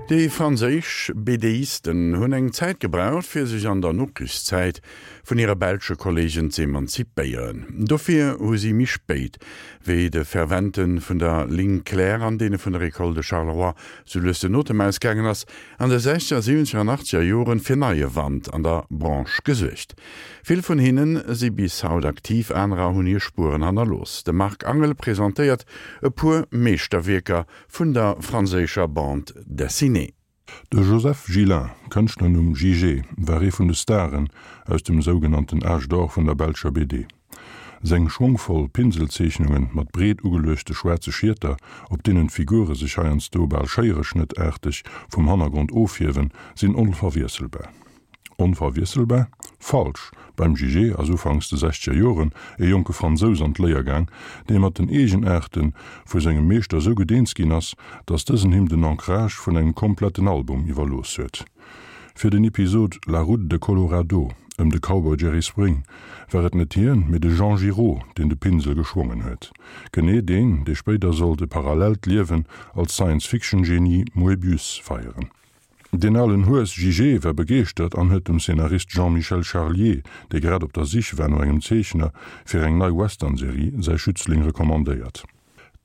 Déi franséisch BDisten hunn eng Zäit gebraucht, fir sech an der Nokrichszäit vun hire belsche Kolleegen z'emanzipéieren. Dofir hu si méi spéit, wéi de Fervente vun der Ligne claire an deene vun der École de Charleroi sou lues den Otem ausgaangen ass, an de sechzeger, siwwenzeger an achtzeger Joren fir neie Wand an der Branche gesuergt. Vill vun hinne si bis haut aktiv, anerer hunn hir Spueren hannerlooss. De Marc Angel presentéiert e puer Meeschterwierker vun der franséischer Bande dessinée. De Joseph Gillain, Kënschtlernumm Jijé, war ee vun de Staren aus dem sougenannten Âge d'or vun der belscher BD. Seng schwongvoll Pinselzeechnunge mat breet ugeluechte schwaarze Schieter, op deenen d'Figure sech heiansdo bal schéiereschnëttaarteg vum Hannergrond ofhiewen, sinn onverwiesselbar. Onverwiesselbar? Falsch! Beim Jijé ass ufanks de sechzeger Joren e jonke Fransous an d'Léier gaang, dee mat den Eegenaarte vu sengem Meeschter sou gutt eens ginn ass, datt dësen him den Ancrage vun engem kompletten Album iwwerlooss huet. Fir den Episod La route de Colorado ëm de Cowboy Jerry Spring war et net hien, mee de Jean Giraud, deen de Pinsel geschwongen huet. Genee deen, dee spéider sollt e parallellt Liewen als Science-Fiction-Genie Moebius feieren. Deen alen Hues Jijé war begeeschtert an huet dem Szenarist Jean-Michel Charlier, dee grad op der Sich war no engem Zeechner fir eng nei Western-Serie, säi Schützling recommandéiert.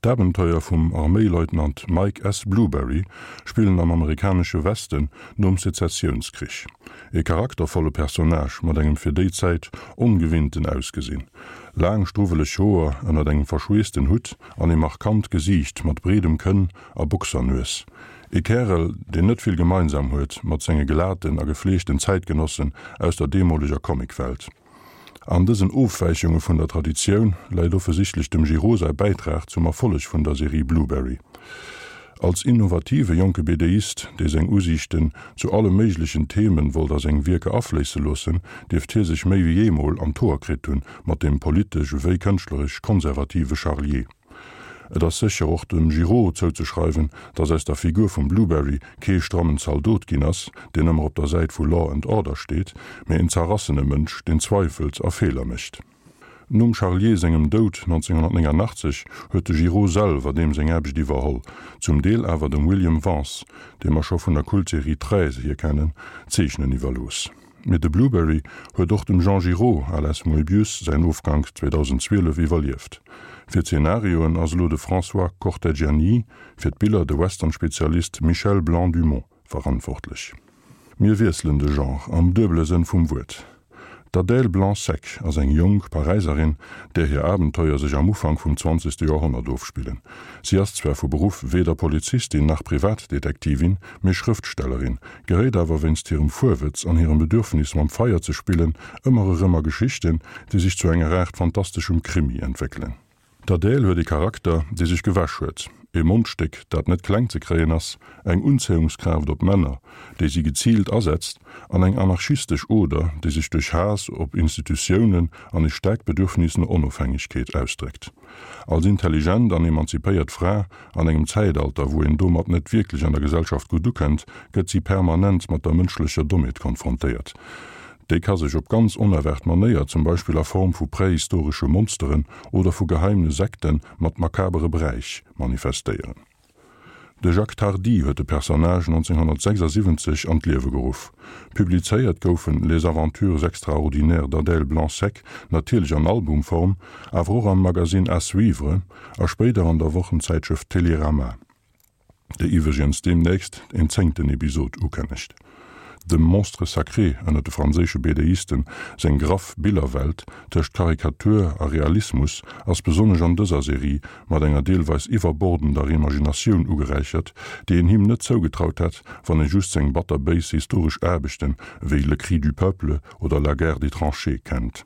D'Abenteuer vum Arméileutnant Mike S. Blueberry spillen am amerikanesche Westen nom Sezessiounskrich. E charaktervolle Personnage mat engem fir déi Zäit ongewinnten Ausgesinn, laang struwweleg Hoer ënnert engem verschweessten Hutt an e markant Gesiicht mat breedem Kënn a Boxernues. E Kärel, deen net vill gemeinsam huet mat senge glaten a gefleegten Zäitgenossen aus der deemoleger Comicwelt. An dësen Ofwäichunge vun der Traditioun läit offesichtlech dem Giraud säi Bäitrag zum Erfolleg vun der Serie Blueberry. Als innovative jonke BDist, dee seng Usiichten zu alle méiglechen Themen wollt a seng Wierker afléisse loossen, dierft hie sech méi wéi eemol an d'Hoer kritt hunn mat dem politesch ewéi kënschtleresch konservative Charlier. Et ass sécher och dem Giraud zouzeschreiwen, datt aus der Figur vum Blueberry kee strammen Zaldot ginn ass, deen ëmmer op der Säit vu Law and Order steet, mee en zerrassene Mënsch, deen zweifelt a Feeler mécht. Nom Charlier sengem Doud 1989 huet de Giraud selwer deem seng Aarbecht iwwerholl, zum Deel awer dem William Vance, dee mer scho vun der Kultserie Treize hier kennen, d'Zeechnen iwwerlooss. Mee de Blueberry huet och dem Jean Giraud, alias Moebius, säin Ofgank 2012 iwwerlieft. Fir d'Zenarioen ass elo de François Corteggiani, fir d'Biller de Western-Spezialist Michel Blanc-Dumont verantwortlech. Mir wiesselen de Genre, am duebele Sënn vum Wuert. D'Adèle Blanc-Sec ass eng jonk Paräiserin, där hir Abenteuer sech am Ufank vum zwanzegste Joerhonnert ofspillen. Si ass zwar vu Beruff weder Polizistin nach Privatdetektivin, mee Schrëftstellerin, geréit awer wéinst hirem Fuerwëtz an hirem Bedürfnis mam Feier ze spillen ëmmer erëm a Geschichten, déi sech zu enger Aart fantasteschem Krimi entwéckelen. D'Adèle huet e Charakter, dee sech gewäsch huet, e Mondstéck, dat net kleng ze kréien ass, eng Unzéiungskraaft op Männer, déi si geziilt asetzt, an eng anarchistesch Oder, déi sech duerch Haass op Institutiounen an e staarkt Bedürfnis no Onofhängegkeet ausdréckt. Als intelligent an emanzipéiert Fra an engem Zäitalter, wou een domat net wierklech an der Gesellschaft gutt ukënnt, gëtt si permanent mat der mënschlecher Dommheet konfrontéiert. Déi ka sech op ganz onerwaart Manéier, zum Beispill a Form vu prähistoresche Monsteren oder vu geheimne Sekte mat makabere Bräich, manifestéieren. De Jacques Tardi huet de Personnage 1976 an d'Liewe geruff. Publizéiert goufen Les aventures extraordinaires d'Adèle Blanc-Sec natierlech an Albumform, awer och am Magazine À suivre a spéider an der Wochenzäitschrëft Télérama, déi iwwregens deemnächst en zéngten Episod ukënnegt. Dem Monstre sacré ënner de franséische BDisten seng graff Billerwelt tëscht Karikatur a Realismus ass besonnesch an dëser Serie mat enger deelweis iwwerbordender Imaginatioun ugeräichert, déi een him net zougetraut hätt, wann ee just seng batterbéis historesch Aarbechten ewéi Le cri du peuple oder La guerre des tranchées kennt.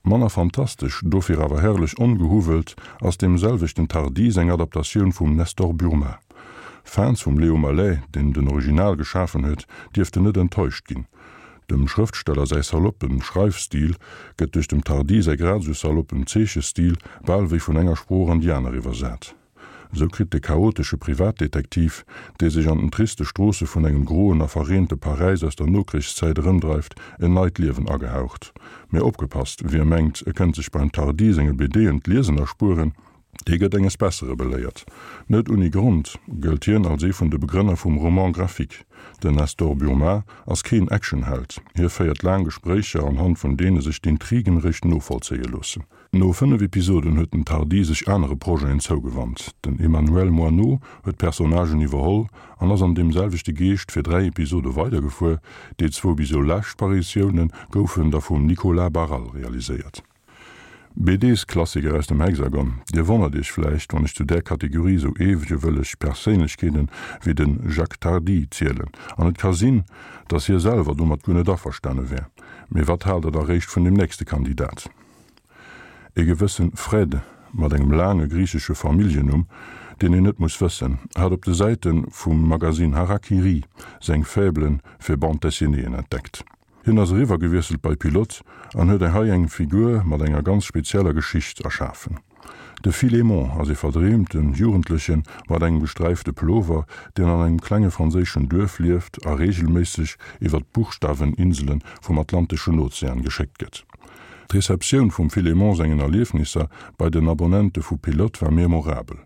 Manner fantastesch, dofir awer herrlech ongehuwwelt, ass deem selwechten Tardi seng Adaptatioun vum Nestor Burma. Fans vum Léo Malet, deen den Original geschafen huet, dierften net enttäuscht ginn. Dem Schrëftsteller säi saloppen Schreifstil gëtt duerch dem Tardi säi grad esou saloppen Zeechestil bal wéi vun enger Sprooch an déi aner iwwersat. Esou kritt de chaotesche Privatdetektiv, dee sech an den triste Stroosse vun engem groen a verreente Paräis aus der Nokrichszäit erëmdreift, en neit Liewen agehaucht. Mee opgepasst, Wie mengt, e kënnt sech beim Tardi senge BDen d'Liesen erspueren. Dee gëtt enges Bessere beléiert. Net unni Grond gëllt hien als ee vun de Begrënner vum Roman graphique. Den Nestor Burma ass keen Actionheld, hie féiert laang Gespréicher, anhand vun deene sech d'Intrigen réischt novollzéie loossen. No 5 Episoden huet den Tardi sech anere Projeten zougewannt. Den Emmanuel Moineau huet d'Personnagen iwwerholl an ass an deem selwechte Geescht fir 3 Episode weidergefuer. Déi zwou bis elo lescht Paritioune goufen da vum Nicolas Barral realiséiert. BDs-Klassiker aus dem Hexagon, Dir wonnert Iech vläicht, wann ech zu där Kategorie sou eewegewëlleg Perséinlechkeeten wéi de Jacques Tardi zielen. An et ka sinn, datt hie selwer domat guer net averstane wär. Mee wat haalt der da réischt vun dem nächste Kandidat? E gewësse Fred mat engem laange griichesche Familljennumm, deen een net muss wëssen, hat op de Säite vum Magazine Hara-Kiri seng Faible fir Bande-dessinéeën entdeckt. Hien ass eriwwer gewiesselt bei Pilote an huet hei eng Figur mat enger ganz spezieller Geschicht erschafen. De Philémon ass ee verdreemte Jugendleche mat engem gesträifte Pullover, deen an engem klenge franséischen Duerf lieft a reegelméisseg iwwer d'Buchstaweninsele vum Atlanteschen Ozean geschéckt gëtt. D'Receptioun vum Philémon sengen Erliefnisser bei den Abonnente vu Pilote war memorabel.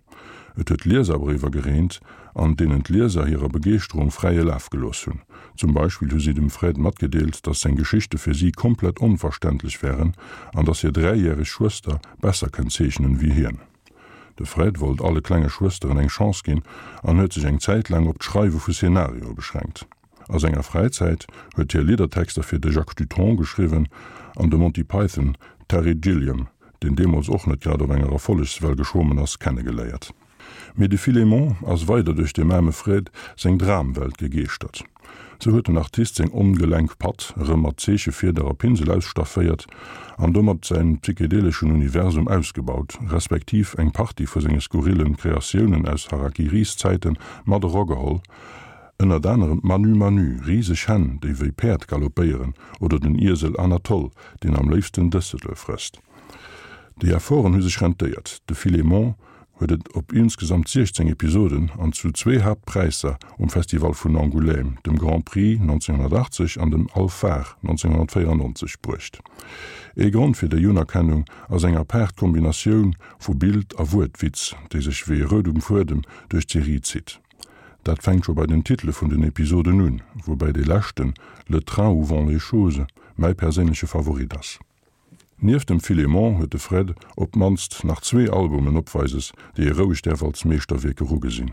Et huet Lieserbréiwer gereent, an deenen d'Lieser hirer Begeeschterung fräie Laf gelooss hunn. Zum Beispill hu si dem Fred matgedeelt, dass seng Geschichte fir si komplett onverständlech wären an dass hir dräijäreg Schwëster besser kënnt zeechnen wéi hien. De Fred wollt alle klenge Schwësteren eng Chance ginn an huet sech eng Zäit laang op d'Schreiwe vu Szenarioe beschränkt. A senger Fräizäit huet hie Liddertexter fir de Jacques Dutronc geschriwwen an de Monty Python Terry Gilliam, deen deemools och net grad op enger Erfollegswell geschwommen ass, kennegeléiert. Mee de Philémon ass weider duerch dem aarme Fred seng Dramwelt gegeeschtert. Sou huet den Artist seng ongelenk Patt erëm mat Zeechefieder a Pinsel ausstafféiert an domat säin psychedeleschen Universum ausgebaut, respektiv eng Partie vu senge skurrillen Kreatiounen aus Harakiris-Zäite mat erageholl, ënnert anerem d'Manu Manu, riseg Hänn, déi wéi Päerd galoppéieren, oder den Iesel Anatole, deen am léifsten Dëssele frësst. Déi Efforten hu sech rentéiert, de Philémon huet et op insgesamt 16 Episoden an zu zwee Haaptpräisser um Festival vun Angoulême, dem Grand Prix 1980 an dem Alphard 1994, bruecht. Ee Grond fir déi Unerkennung ass eng apaart Kombinatioun vu Bild a Wuertwitz, déi sech wéi e roudem Fuedem duerch d'Serie zitt. Dat fänkt scho bei den Titele vun den Episoden un, woubäi dee leschten, Le train où vont les choses, mäi perséinleche Favorit ass. Nieft dem Philémon huet de Fred op d'mannst nach zwee Albumen opweises, déi ee roueg däerf als Meeschterwierk erugesinn,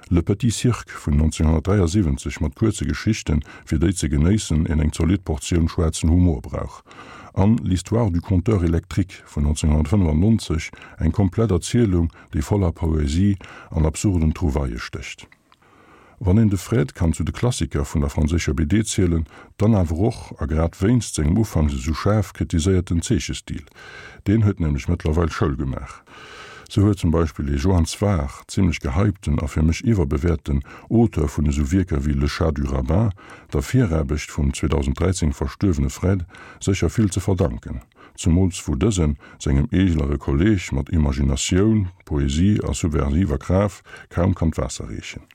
Le Petit Cirque vun 1973 mat kuerze Geschichten, fir déi ze genéissen een eng zolidd Portioun schwaarzen Humor brauch, an L'Histoire du compteur électrique vun 1995, eng komplett Erzielung, déi voller Poesie an absurden Trouvaillë stécht. Wann een de Fred kann zu de Klassiker vun der franséischer BD zielen, dann awer och, a grad wéinst sengem ufanks esou schaarf kritiséierten Zeechestil. Deen huet nämlech mëttlerweil Schoul gemaach. Sou huet zum Beispill ee Johann Sfar, zimmlech gehypten a fir mech iwwerbewäerten Auteur vun esou Wierker wéi Le Chat du Rabbin, der Viraarbecht vum 2013 verstuerwene Fred sécher vill ze verdanken. Zemools wou dësen sengem eeglere Kolleeg mat Imaginatioun, Poesie a subversiver Kraaft kaum kann d'Waasser reechen.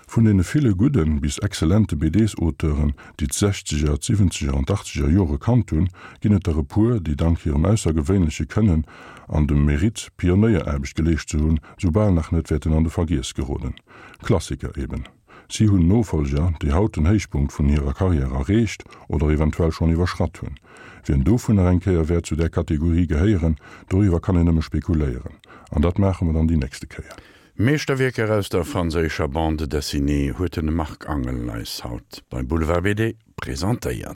Vun deene ville gudden bis exzellente BDs-Auteuren, déi d'Sechzeger, d'Siwwenzeger an d'Achtzeger Jore kannt hunn, ginn et der e puer, déi dank hirem aussergewéinleche Kënnen an dem Mérite, Pionéieraarbecht geleescht ze hunn, soubal nach net wäerten an de Vergiess geroden. Klassiker eben. Si hunn Nofolger, déi haut den Héichpunkt vun hirer Karriär erreecht oder eventuell schonn iwwerschratt hunn. Wien dovunner eng Kéier wäert zu där Kategorie gehéieren, doriwwer kann een nëmme spekuléieren. An dat maache mer dann déi nächste Kéier. Meeschterwierker aus der franséischer Bande dessinée huet de Marc Angel eis haut bei Boulevard BD presentéiert.